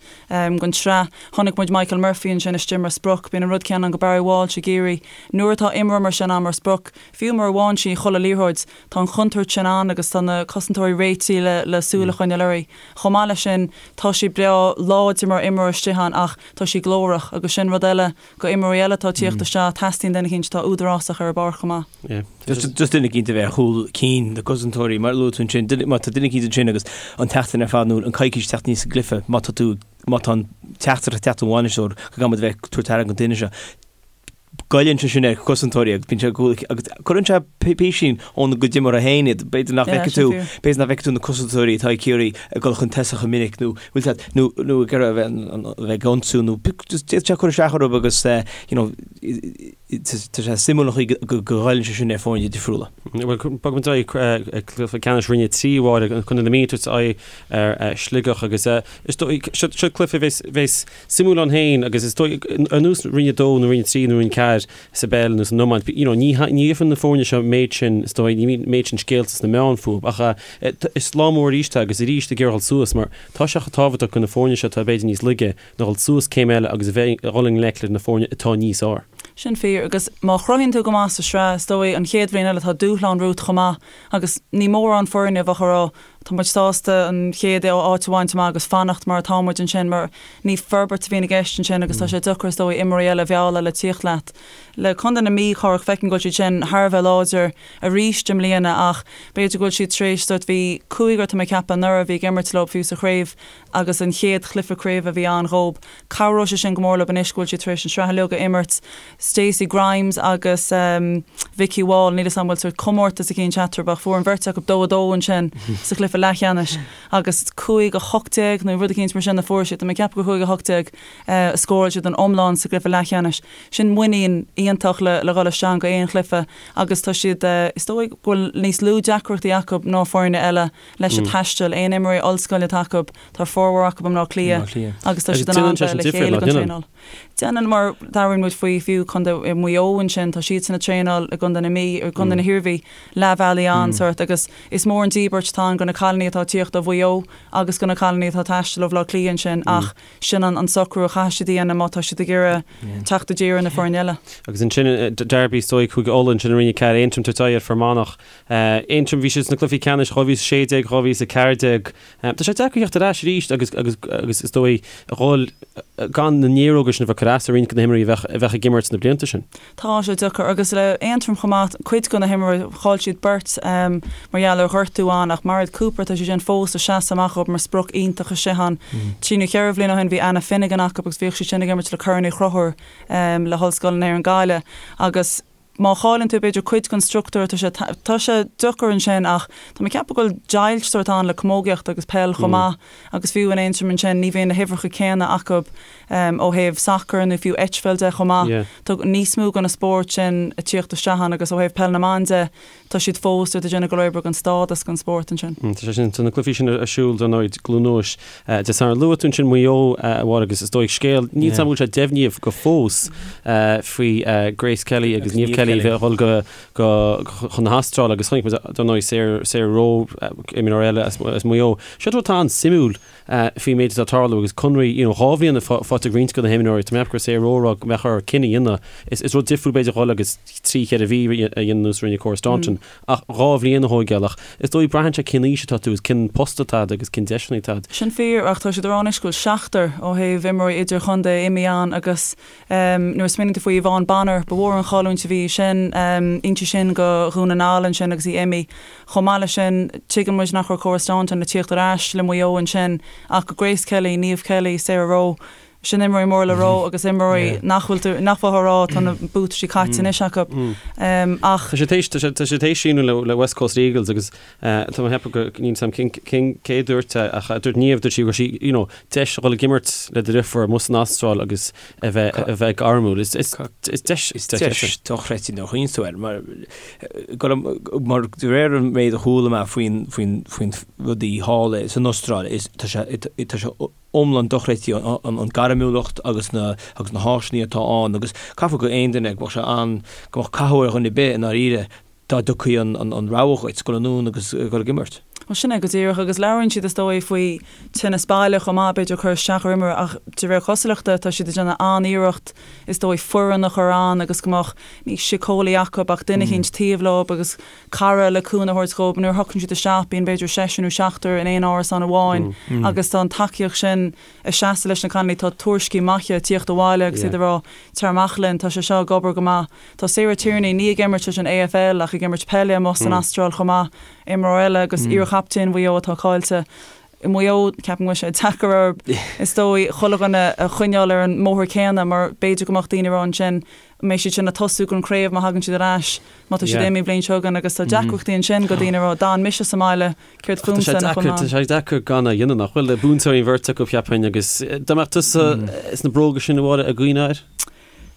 don tsraith, chonaic muid Michael Murphy ansin istigh mar sprioc. Bíonn an rud céanna ann go Barry Walsh i gCiarraí. Nuair atá imreoir mar sin ann mar sprioc, fiú mura bhfaigheann sí chuile liathróid, tá an chontúirt sin ann agus tá na cosantóirí réitithe le le súil a choinneáil uirthi. Chomh maith leis sin, tá sí breá láidir mar imreoir istigh ann ach tá sí glórach agus sin rud eile go imreoirí eile atá ag tíocht isteach, teastaíonn duine eicínt atá údarásach ar an bpáirc chomh maith. Just duine eicínt a bheith ar chúl cinn na gcosantóirí, mar a luaigh tú ansin, má tá duine eicínt ansin agus an tseachtain ar fad nó an coicís teacht aníos sa gcluiche, má tá tú, má tá an teachtaireacht ag teacht ón bhainisteoir go gcaithfidh muid a bheith ag tabhairt aire don duine seo, goilleann sé sin ar chosantóirí agus bíonn sé agus cuireann sé písín óna gcuid imeartha féin iad. B'fhéidir nach bhfeicfidh tú, b'fhéidir nach bhfeicfidh tú na cosantóirí atá ag Ciarraí ag dul chun tosaigh chomh minic nó bhfuil siad nó nó ag iarraidh a bheith a bheith ag ionsú nó just d'fhéadfadh sé cur isteach orthu agus you know tá sé suimiúil an chaoi go goilleann sé sin ar foirne difriúla. Bhuel, bogfaidh muid ar aghaidh cluiche ceannais Roinn 3 a Mháire, Contae na Mí ag tabhairt aghaidh ar Shligeach agus is dóigh seo seo cluiche a bheas bheas suimiúil ann féin agus is dóigh ar nós Roinn 2 nó Roinn 3 nó Roinn 4 sa bpeil nó san iomáint, you know, ní ní gheofar na foirne seo méid sin, is dóigh, ní bhíonn méid sin scéalta sna meáin fúthu ach is lá mór arís é agus arís ag iarraidh dul suas mar tá sé chomh tábhachtach do na foirne seo atá b'fhéidir níos laige ná dhul suas céim eile agus a bheith ag dhul i ngleic le na foirne atá níos fhearr. Sin fíor agus má chruthaíonn tú go maith sa sraith, is dóigh an chéad bhliain eile tá dúshlán romhat chomh maith agus ní mórán foirne a bheadh ag rá Tá muid sásta an chéad áit a bhaint amach agus fanacht mar atá muid ansin mar ní forbairt a bhíonn i gceist ansin agus tá sé deacair is dóigh imreoirí eile a mhealladh le tíocht leat. Le Contae na Mí, Cárthach, feicim go bhfuil siad sin thar a bheith láidir arís i mbliana ach b'fhéidir go bhfuil siad tar éis sórt bhí cúigear tá mé ag ceapadh anuraidh a bhí ag imirt leo fiú sa chraobh agus an chéad chluiche craoibhe a bhí ann dhób. Cabhróidh sé sin go mór leo anois go bhfuil siad tar éis an sraith uilig a imirt. Stacey Grimes agus Vikki Wall, níl 'fhios a'm an bhfuil sórt comórtas eicínt eatarthu ach fuair an bheirt acu 2 2 ansin sa chluiche leathcheannais agus 5 18 nó rud eicínt mar sin a fuair siad. Tá mé ag ceapadh gur 5 18 a scóráil siad an iomlán sa gcluiche leathcheannais. Sin muinín iontach le le dhul isteach go aon chluiche agus tá siad, is dóigh go bhfuil níos lú deacrachtaí acu ná foirne eile leis an taisteal. Aon imreoirí ollscoile atá acu, tá formhór acu i mBleá Cliath agus tá siad in ann bheith le chéile don traenáil. Déanann, mar labhraíonn muid faoi fiú Contae Mhaigh Eo ansin, tá siadsan ag traenáil i gContae na Mí, i gContae na hIarmhí, leath bealaigh ann sórt agus is mór an díbirt atá ann do na cailíní atá ag tíocht ó Mhaigh Eo agus do na cailíní atá ag taisteal ó Bhaile Átha Cliath ansin ach sin an socrú a chaithfidh siad a dhéanamh má tá siad ag iarraidh teacht i dtír ar na foirne eile. Agus ansin Derby is dóigh Cúige Uladh ansin i Roinn 4, Aontroim ag tabhairt aghaidh ar Fear Manach. Aontroim, bhí siad sna cluichí ceannais 2016, 2014. Tá sé deacair theacht ar ais arís agus agus agus is dóigh a dhul gan na néaróga sin a bheith ag cur as ar roinnt de na himreoirí a bheadh a bheadh ag imirt sna blianta sin. Tá sé deacair agus le Aontroim chomh maith, cuid de na himreoirí, chaill siad beirt mar gheall ar ghortú ann ach Mairéad Cooper, tá sí sin fós ag seasamh amach dhóibh mar sprioc iontach istigh ann. Trí nó cheithre bhliain ó shin bhí Anna Finnegan acu agus bhíodh sí sin ag imirt le Corn Uí Chonchúir le hOllscoil na hÉireann Gaillimh agus. Má chailleann tú b'fhéidir cuid den struchtúr tá sé tá sé deacair ansin ach tá mé ag ceapadh go bhfuil deighilt sórt ann le camógaíocht agus peil chomh maith agus fiú in Aontroim ansin ní bhíonn na huimhreacha céanna acu ó thaobh sacair nó fiú eitpheil de chomh maith. Tá níos mó de na spóirt sin ag tíocht isteach ann agus ó thaobh peil na mban de tá siad fós ag déanamh go leor oibre don stádas don spórt ansin. Tá sé sin, tá na cluichí sin ar siúl dar ndóigh i gCluain Eois Dé Sathairn. Luaigh tú ansin Maigh Eo, a Mháire, agus is dóigh scéal, níl 's agam an bhfuil sé deimhnithe go fós faoi Grace Kelly agus Niamh Kelly a bheith ag dul go, go, chun na hAstráile agus chonaic muid dar ndóigh Sarah, Sarah Rowe, imreoir eile as, as Maigh Eo. Seo rud atá an-suimiúil faoin méid atá ag tarlú agus conraí, you know, 2 bhliain faighte ag roinnt de na himreoirí, tá mé ag ceapadh go raibh Sarah Rowe ag rá go mbeadh orthu cinneadh a dhéanamh. Is, is rud difriúil b'fhéidir dhul agus 3, 4 mhí a dhéanamh nós a rinne Cora Staunton ach 2 bhliain a thóigeáil ach is dóigh braitheann sé cén aois atá tú agus cén post atá agat agus cén deiseanna atá agat. Sin fíor ach tá siad ag rá anois go bhfuil seachtar ó thaobh imreoirí idirchontae imithe ann agus nuair a smaoiníonn tú faoi Yvonne Bonner, ba mhór an chailliúint a bhí sin, inti sin go Dhún na nGall ansin agus í imithe. Chomh maith leis sin, tuigeann muid nach raibh Cora Staunton ag tíocht ar ais le Maigh Eo ansin ach go Grace Kelly, Niamh Kelly, Sarah Rowe, sin imreoirí mór le rá agus imreoirí nach bhfuil tú, nach bhfuil á rá, tá na buataisí caite anois acu. Ach. Tá sé théis, tá sé, tá sé théis síniú le, le West Coast Eagles agus tá mé ag ceapadh go, níl 's agam cén, cén, cé a dúirt é ach dúirt Niamh, dúirt sí go raibh sí, you know, deis a dhul ag imirt le do dheirfiúr amuigh san Astráil agus a bheith, a bheith gairmiúil. Is, is, is deis, is deis é sin. Is deis dochreidte nuair a chuimhníonn tú air mar, go, mar de réir an méid a chuala mé faoin, faoin, faoin rudaí thall san Astráil is, tá sé, tá sé iomlán dochreidte an gairmiúlacht agus na agus na háiseanna atá ann agus caithfidh go aon duine go mbeadh sé an go mbeadh cathú ar dhuine ar bith i ndáiríre dá dtiocfaí an an rogha dhuit dul anonn agus dul ag imirt. Bhuel sin é go díreach agus labhraíonn siad is dóigh faoi tinneas baile chomh maith b'fhéidir cur isteach ar imreoir ach de réir cosúlachta tá siad ag déanamh an-iarracht is dóigh foireann a chur ann agus go mbeadh ní síceolaí acu ach duine eicínt taobh leo agus cara le cúnamh a thabhairt dhóibh. Nuair a thiocfainn siad isteach bíonn b'fhéidir seisear nó seachtar in aon árasán amháin agus tá an tacaíocht sin ag seasamh leis na cailíní. Tá tuairiscí maithe ag tíocht abhaile agus iad ag rá tar amach linn, tá sé seo ag obair go maith. Tá Sarah Tierney, ní ag imirt leis an AFL ach ag imirt peile amuigh san Astráil chomh maith, imreoir eile agus iarchaptaen Mhaigh Eo atá caillte. I Maigh Eo, ceapaim go bhfuil sé deacair orthu, is dóigh, chuile dhuine a choinneáil ar an mbóthar céanna mar b'fhéidir go mbeadh daoine ag rá ansin, an mbeidh siad sin ag tosú don chraobh má thagann siad ar ais, má tá siad imithe an bhliain seo chugainn agus tá deacrachtaí ansin do daoine ag rá, d'fhan mise sa mbaile, céard fúmsa nach bhfuil mé ann? Tá sé deacair gan a dhéanamh, nach bhfuil? Buaiteoirí an bheirt acu, cheapfainn, agus dá mbeadh tusa sna bróga sin, a Mháire, an gcuimhneofá air?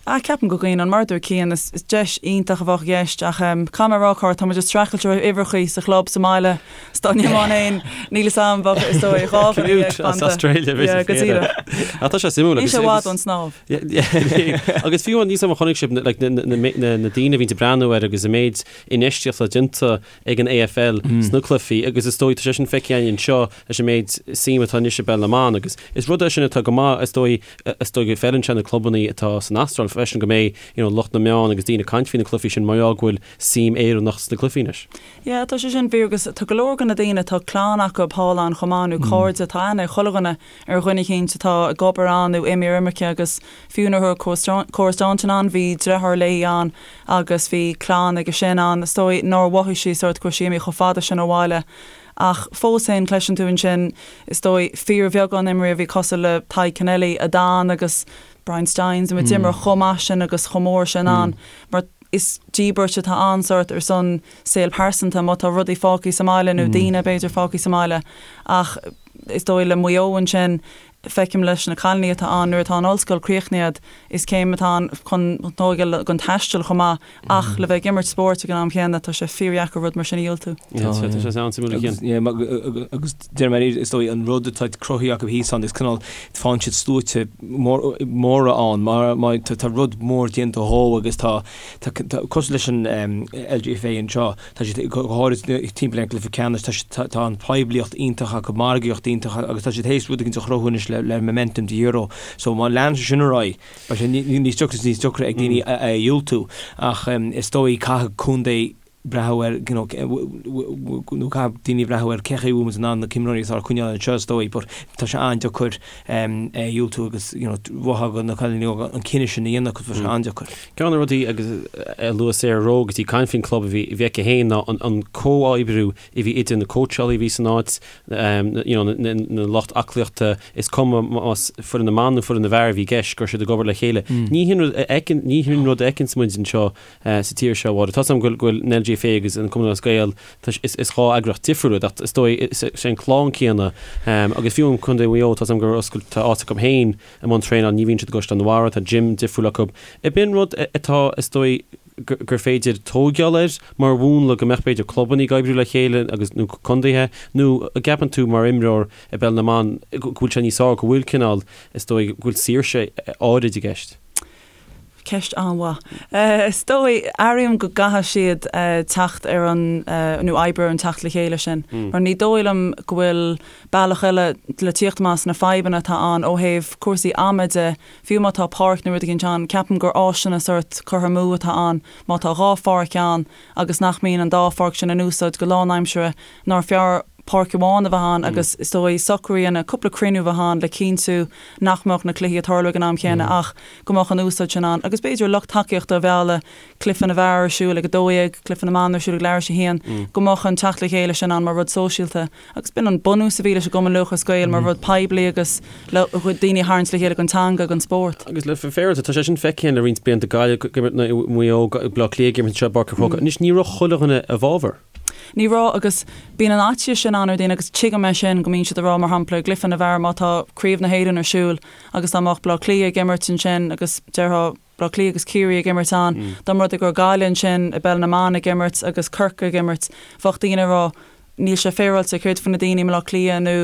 Ah, ceapaim go gcuimhneoinn, mar a dúirt Cian, is deis iontach a bheadh i gceist ach caithfidh mé a rá, Cárthach, tá muid ag streachailt ó thaobh uimhreachaí sa chlub sa mbaile, 's dá n-imeoinn féin, níl 'fhios a'm, bheadh, is dóigh, 2 dhuine dhéag fanta. As Australia, b'fhéidir. Yeah, go díreach. Ach tá sé suimiúil. Níl sé i bhfad ón snámh. Agus fiú níl 'fhios a'm an chonaic sibh like, na, na, na, na daoine a bhíonn ag breathnú air agus an méid infheistíochta déanta ag an AFL sna cluichí agus is dóigh tá sé sin feicthe againn anseo leis an méid suim atá anois i bpeil na mban agus is rud é sin atá go maith is dóigh is dóigh go bhfeileann sé na clubanna atá san Astráil freisin go mbeidh you know, lucht na meán agus daoine ag caint faoi na cluichí sin mar gheall go bhfuil suim Éireannach sna cluichí anois. Yeah, tá sé sin fíor agus tá go leor de na daoine tá clann acu thall ann chomh maith nó cairde tá aithne ag chuile dhuine ar dhuine eicínt atá ag obair ann nó imithe ar imirce agus fiú nuair a raibh Cora Staunton ann bhí deartháir léi ann agus bhí clann aige sin ann. Is dóigh nár mhothaigh sí sórt go raibh sí imithe chomh fada sin ó bhaile ach fós féin cloiseann tú ansin is dóigh fíorbheagán imreoirí a bhí cosúil le Tadhg Kennelly a d'fhan agus Brian Stynes a d'imir chomh maith sin agus chomh mór sin ann mar is díbirt atá ann sórt ar son saol pearsanta má tá rudaí fágtha sa mbaile nó daoine b'fhéidir fágtha sa mbaile ach is dóigh le Maigh Eo ansin, feicim leis na cailíní atá ann, nuair atá an ollscoil críochnaithe agat, is céim atá ann chun tógáil don taisteal chomh maith ach le bheith ag imirt spóirt ag an am chéanna, tá sé fíordheacair rud mar sin a dhiúltú. Tá sé an-suimiúil a Chian. Agus deir mé is dóigh an rud atá cruthaithe acu thíos ann is cineál faigheann siad sluaite móra ann mar tá rud mór déanta dhó agus tá cosúil leis an LGFA anseo, Tá siad, go háirid timpeall ar an gcluiche ceannais, tá siad, tá an poiblíocht iontach acu, margaíocht iontach agus tá siad théis rud éigin a chruthú anois le le momentum the Euro. So má leanann sé sin ar aghaidh, beidh sé níos deacra is níos deacra ag daoine é a dhiúltú. Ach is dóigh caithfidh contae. breathnú ar, you know, nó caithfidh daoine breathnú ar cé chaoi a bhfuil muid in ann na himreoirí atá a choinneáil anseo is dóigh, but tá sé an-deacair é a dhiúltú agus, you know, mholfá do na cailíní óga an cinneadh sin a dhéanamh agus tá sé an-deacair. Ceann de na rudaí agus a luaigh Sarah Rowe agus í ag caint faoin club a bhí a bhí aici féin ná an an comhoibriú a bhí idir na cóitseálaí a bhí san áit, you know, na na lucht aclaíochta, is cuma más foireann na mban nó foireann na bhfear a bhí i gceist, go raibh siad ag obair le chéile. Ní hin rud a fheiceann, ní hin rud a fheiceanns muid anseo sa tír seo, a Mháire. Tá 's agam go bhfuil an LGFA agus an Cumann Lúthchleas Gael, is 2 eagraíocht difriúil iad ach is dóigh is é an clann céanna agus fiú in Contae Mhaigh Eo tá 's agam gur oscail, tá áit acu féin i mbun traenáil, ní bhíonn siad i gCaisleán an Bharraigh, tá gym difriúil acu. Ab in rud atá is dóigh gur féidir tóigeáil air mar mhúnla go mbeadh b'fhéidir clubanna ag oibriú le chéile agus nó contaetha nó an gceapann tú mar imreoir i bpeil na mban go bhfuil sé níos fearr go bhfuil cineál is dóigh go bhfuil saoirse áirid i gceist? Ceist an-mhaith. Is dóigh, airím go gcaithfidh siad teacht ar an, nó oibriú ar an teacht le chéile sin. Mar ní dóigh liom go bhfuil bealach eile le tíocht amach as na fadhbanna atá ann ó thaobh cúrsaí ama de, fiú má tá páirc nó rud éicint ann, ceapaim gur áiseanna sórt curtha amú atá ann má tá 2 pháirc ann agus nach mbíonn an dá pháirc sin in úsáid go lánaimseartha, nár fearr páirc amháin a bheith ann agus is dóigh socrú a dhéanamh, cúpla cruinniú a bheith ann le cinntiú nach mbeadh na cluichí ag tarlú ag an am chéanna ach go mbeadh an úsáid sin ann agus b'fhéidir lucht tacaíochta a mhealladh, cluiche na bhfear ar siúl ag 12, cluiche na mban ar siúl ag leathuair tar éis a haon, go mbeadh an teacht le chéile sin ann mar rud sóisialta agus b'in an bunús a bhí leis an gCumann Lúthchleas Gael mar rud poiblí agus le daoine a tharraingt le chéile don teanga, don spórt. Agus le féaráilte, tá sé sin feicthe le roinnt blianta, Gaillimh ag imirt Maigh Eo, Baile Átha Cliath ag imirt anseo i bPáirc an Chrócaigh. Anois ní raibh chuile dhuine i bhfabhar. Ní raibh, agus bíonn an fhaitíos sin ann ar dhaoine agus tuigim é sin, go mbíonn siad ag rá, mar shampla, i gcluiche na bhfear, má tá Craobh na hÉireann ar siúl agus dá mbeadh Baile Átha Cliath ag imirt ansin agus déarfá Baile Átha Cliath agus Ciarraí ag imirt ann, dá mba rud é go raibh Gaillimh ansin i bpeil na mban ag imirt agus Corcaigh ag imirt, bheadh daoine ag rá, níl sé féaráilte, céard faoi na daoine i mBaile Átha Cliath nó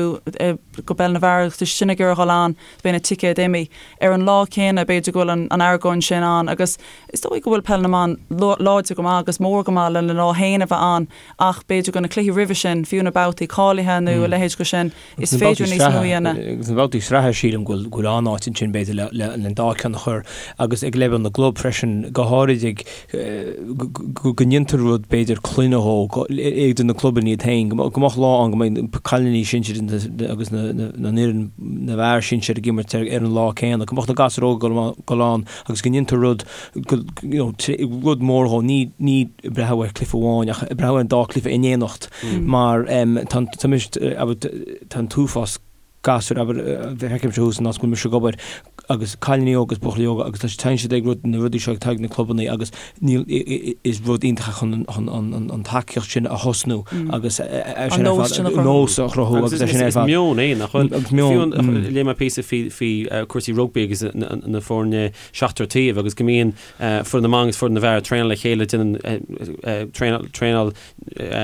go bpeil na bhfear agus tá siad sin ag iarraidh a dhul ann, beidh na ticéid imithe. Ar an lá céanna, b'fhéidir go bhfuil an argóint sin ann agus is dóigh go bhfuil peil na mban láidir go maith agus mór go maith lena lá féin a bheith ann ach b'fhéidir go na cluichí roimhe sin, fiú na babhtaí cáilithe nó a leithéid de sin, is féidir níos mó a dhéanamh. Agus na babhtaí sraithe sílim go bhfuil an-áit ansin b'fhéidir le an dá ceann a chur agus ag leibhéal na gclub freisin, go háirid ag go ndéantar rud b'fhéidir clainne dhó idir na clubanna iad féin, go mbeadh lá ann go mbeidh cailíní sinsir agus na fhoireann na bhfear sinsir ag imirt ar an lá céanna, go mbeadh na gasúir óga ag dul ann agus go ndéantar rud you know rud mór dhó, ní ní breathnú ar chluiche amháin ach breathnú ar an dá chluiche in éineacht mar tá tá an t-uafás gasúir, abair, feicimse thuas an áit go bhfuil mise ag obair agus cailíní óga agus buachaillí óga agus tá téann siad ag rud, na rudaí seo ag ag na clubanna agus níl, is rud iontach é chun an, an tacaíocht sin a thosnú agus é sin ar fad, an nós a chruthú agus é sin ar fad. Is meon é, nach bhfuil? Agus meon. Fiú, léigh mé píosa faoi, faoi cúrsaí rugbaí agus na foirne seachtar taobh agus go mbíonn foireann na mban agus foireann na bhfear ag traenáil le chéile, déanann traenáil, traenáil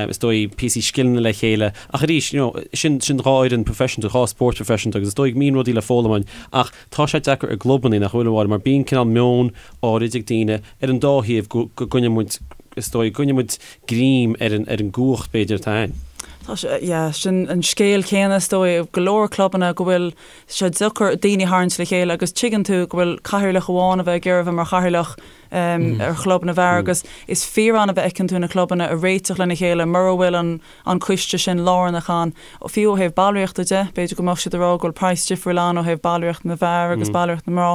is dóigh, píosaí scileanna le chéile. Ach arís, you know, sin, sin dhá fhoireann professional, dhá spórt professional agus is dóigh go mbíonn rudaí le foghlaim ann. Ach tá sé deacair i gclubanna, nach bhfuil, a Mháire, mar bíonn cineál meon áirid ag daoine ar an dá thaobh go, go gcoinneoidh muid, is dóigh, go gcoinneoidh muid greim ar an, ar an gcumhacht b'fhéidir atá ann. Tá sé, yeah, sin an scéal céanna is dóigh i go leor clubanna go bhfuil sé deacair daoine a tharraingt le chéile agus tuigeann tú go bhfuil cathaoirleach amháin a bheith ag iarraidh a bheith mar chathaoirleach ar chlub na bhfear agus is fíor-annamh a fheiceann tú na clubanna ag réiteach lena chéile mura bhfuil an an coiste sin lárnach ann. Fiú ó thaobh ballraíochta de, b'fhéidir go mbeadh siad ag rá go bhfuil praghas difriúil ann ó thaobh ballraíocht na bhfear agus ballraíocht na mná.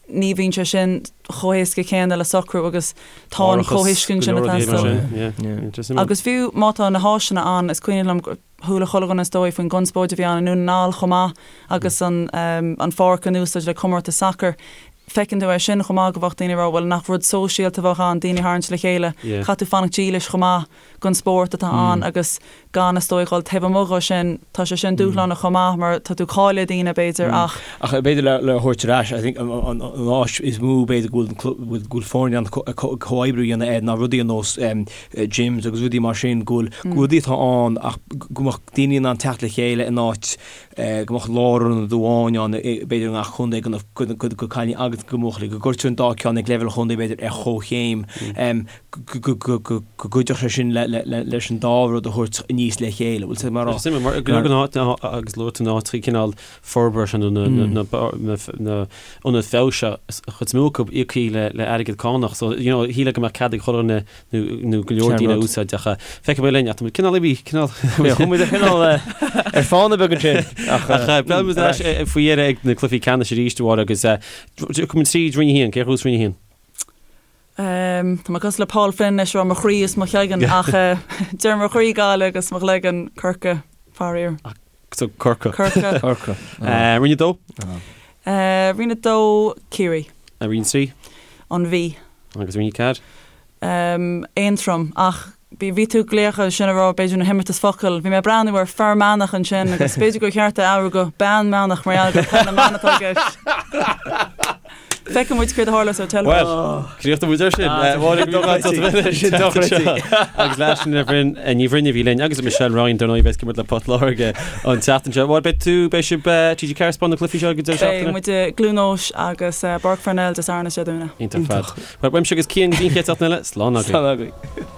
Ní bhíonn sé sin chomh héasca céanna le socrú agus tá an comhthuiscint sin ag teastáil. Agus fiú má tá na háiseanna ann, is cuimhin liom chuala chuile dhuine is dóigh faoin gconspóid a bhí ann i nDún na nGall chomh maith agus an an pháirc in úsáid le comórtas sacair. Feiceann tú é sin chomh maith go bheadh daoine ag rá bhuel nach rud sóisialta a bheadh ann daoine a tharraingt le chéile. Caithfidh tú fanacht dílis chomh maith don spórt atá ann agus gan is dóigh dhul taobh amuigh dhó sin. Tá sé sin dúshlánach chomh maith mar tá tú ag cailleadh daoine b'fhéidir ach. Ach b'fhéidir le le thabhairt ar ais I think an an áis is mó b'fhéidir go bhfuil go bhfuil foirne an comhoibriú a dhéanamh air ná rudaí ar nós gyms agus rudaí mar sin, go bhfuil rudaí atá ann ach go mbeadh daoine in ann teacht le chéile in áit go mbeadh lárionad amháin ann b'fhéidir i ngach contae do na cailíní agus. agat do bhuachaillí, go gcuirtear an dá ceann ag leibhéal chontae b'fhéidir ar chomhchéim, go gcuideodh sé sin leis an dá rud a thabhairt aníos le chéile. Bhfuil sé mar Is suimiúil mar go leor den áit agus luaigh tú na háiteacha cineál forbartha nó na ionaid feabhais seo, an chuid is mó acu íoctha le airgead cánach so you know shílfeá go mbeadh cead ag chuile dhuine nó go leor daoine a úsáid ach feicfidh mé linn ach tá muid cineál imithe cineál Chuaigh muid cineál ar fána beag ansin ach beidh muid ar ais faoi dheireadh ag na cluichí ceannais arís a Mháire agus tiocfaidh muid tríd Roinn 1, cé a ghnóthós Roinn 1? Tá mé cosúil le Paul Flynn anois ag rá mo chroí is mo chloigeann ach deir mo chroí Gaillimh agus mo chloigeann Corcaigh, faraor. So Corcaigh. Corcaigh. Corcaigh. Roinn 2? Roinn 2, Ciarraí. Roinn 3? An Mhí. Agus Roinn 4? Aontroim, ach bhí tú ag glaoch ansin ag rá b'fhéidir na himeartas focal. Bhí mé ag breathnú ar Fear Manach ansin agus b'fhéidir gur cheart é a athrú go Bean Manach mar gheall gur peil na mban atá i gceist. Feicfidh muid céard a tharlós ar teilifís. Bhuel, críochnóidh muid ar sin. Máire, go raibh maith agat as ucht a bheith linn. Agus leis Ní Bhroin, Ní Bhroin a bhí linn agus Michelle Ryan dar ndóigh a bheas ag imirt le Port Láirge an tseachtain seo. Máire, beidh tú, beidh sibh TG4 ag spáint na cluichí seo ag an deireadh seachtaine? Beidh muid i gCluain Eois agus i bPáirc Pharnell Dé Sathairn is Dé Domhnaigh. Iontach ar fad. Bhuel, uaimse agus Cian go dtí an chéad seachtain eile, slán agaibh. Slán agaibh.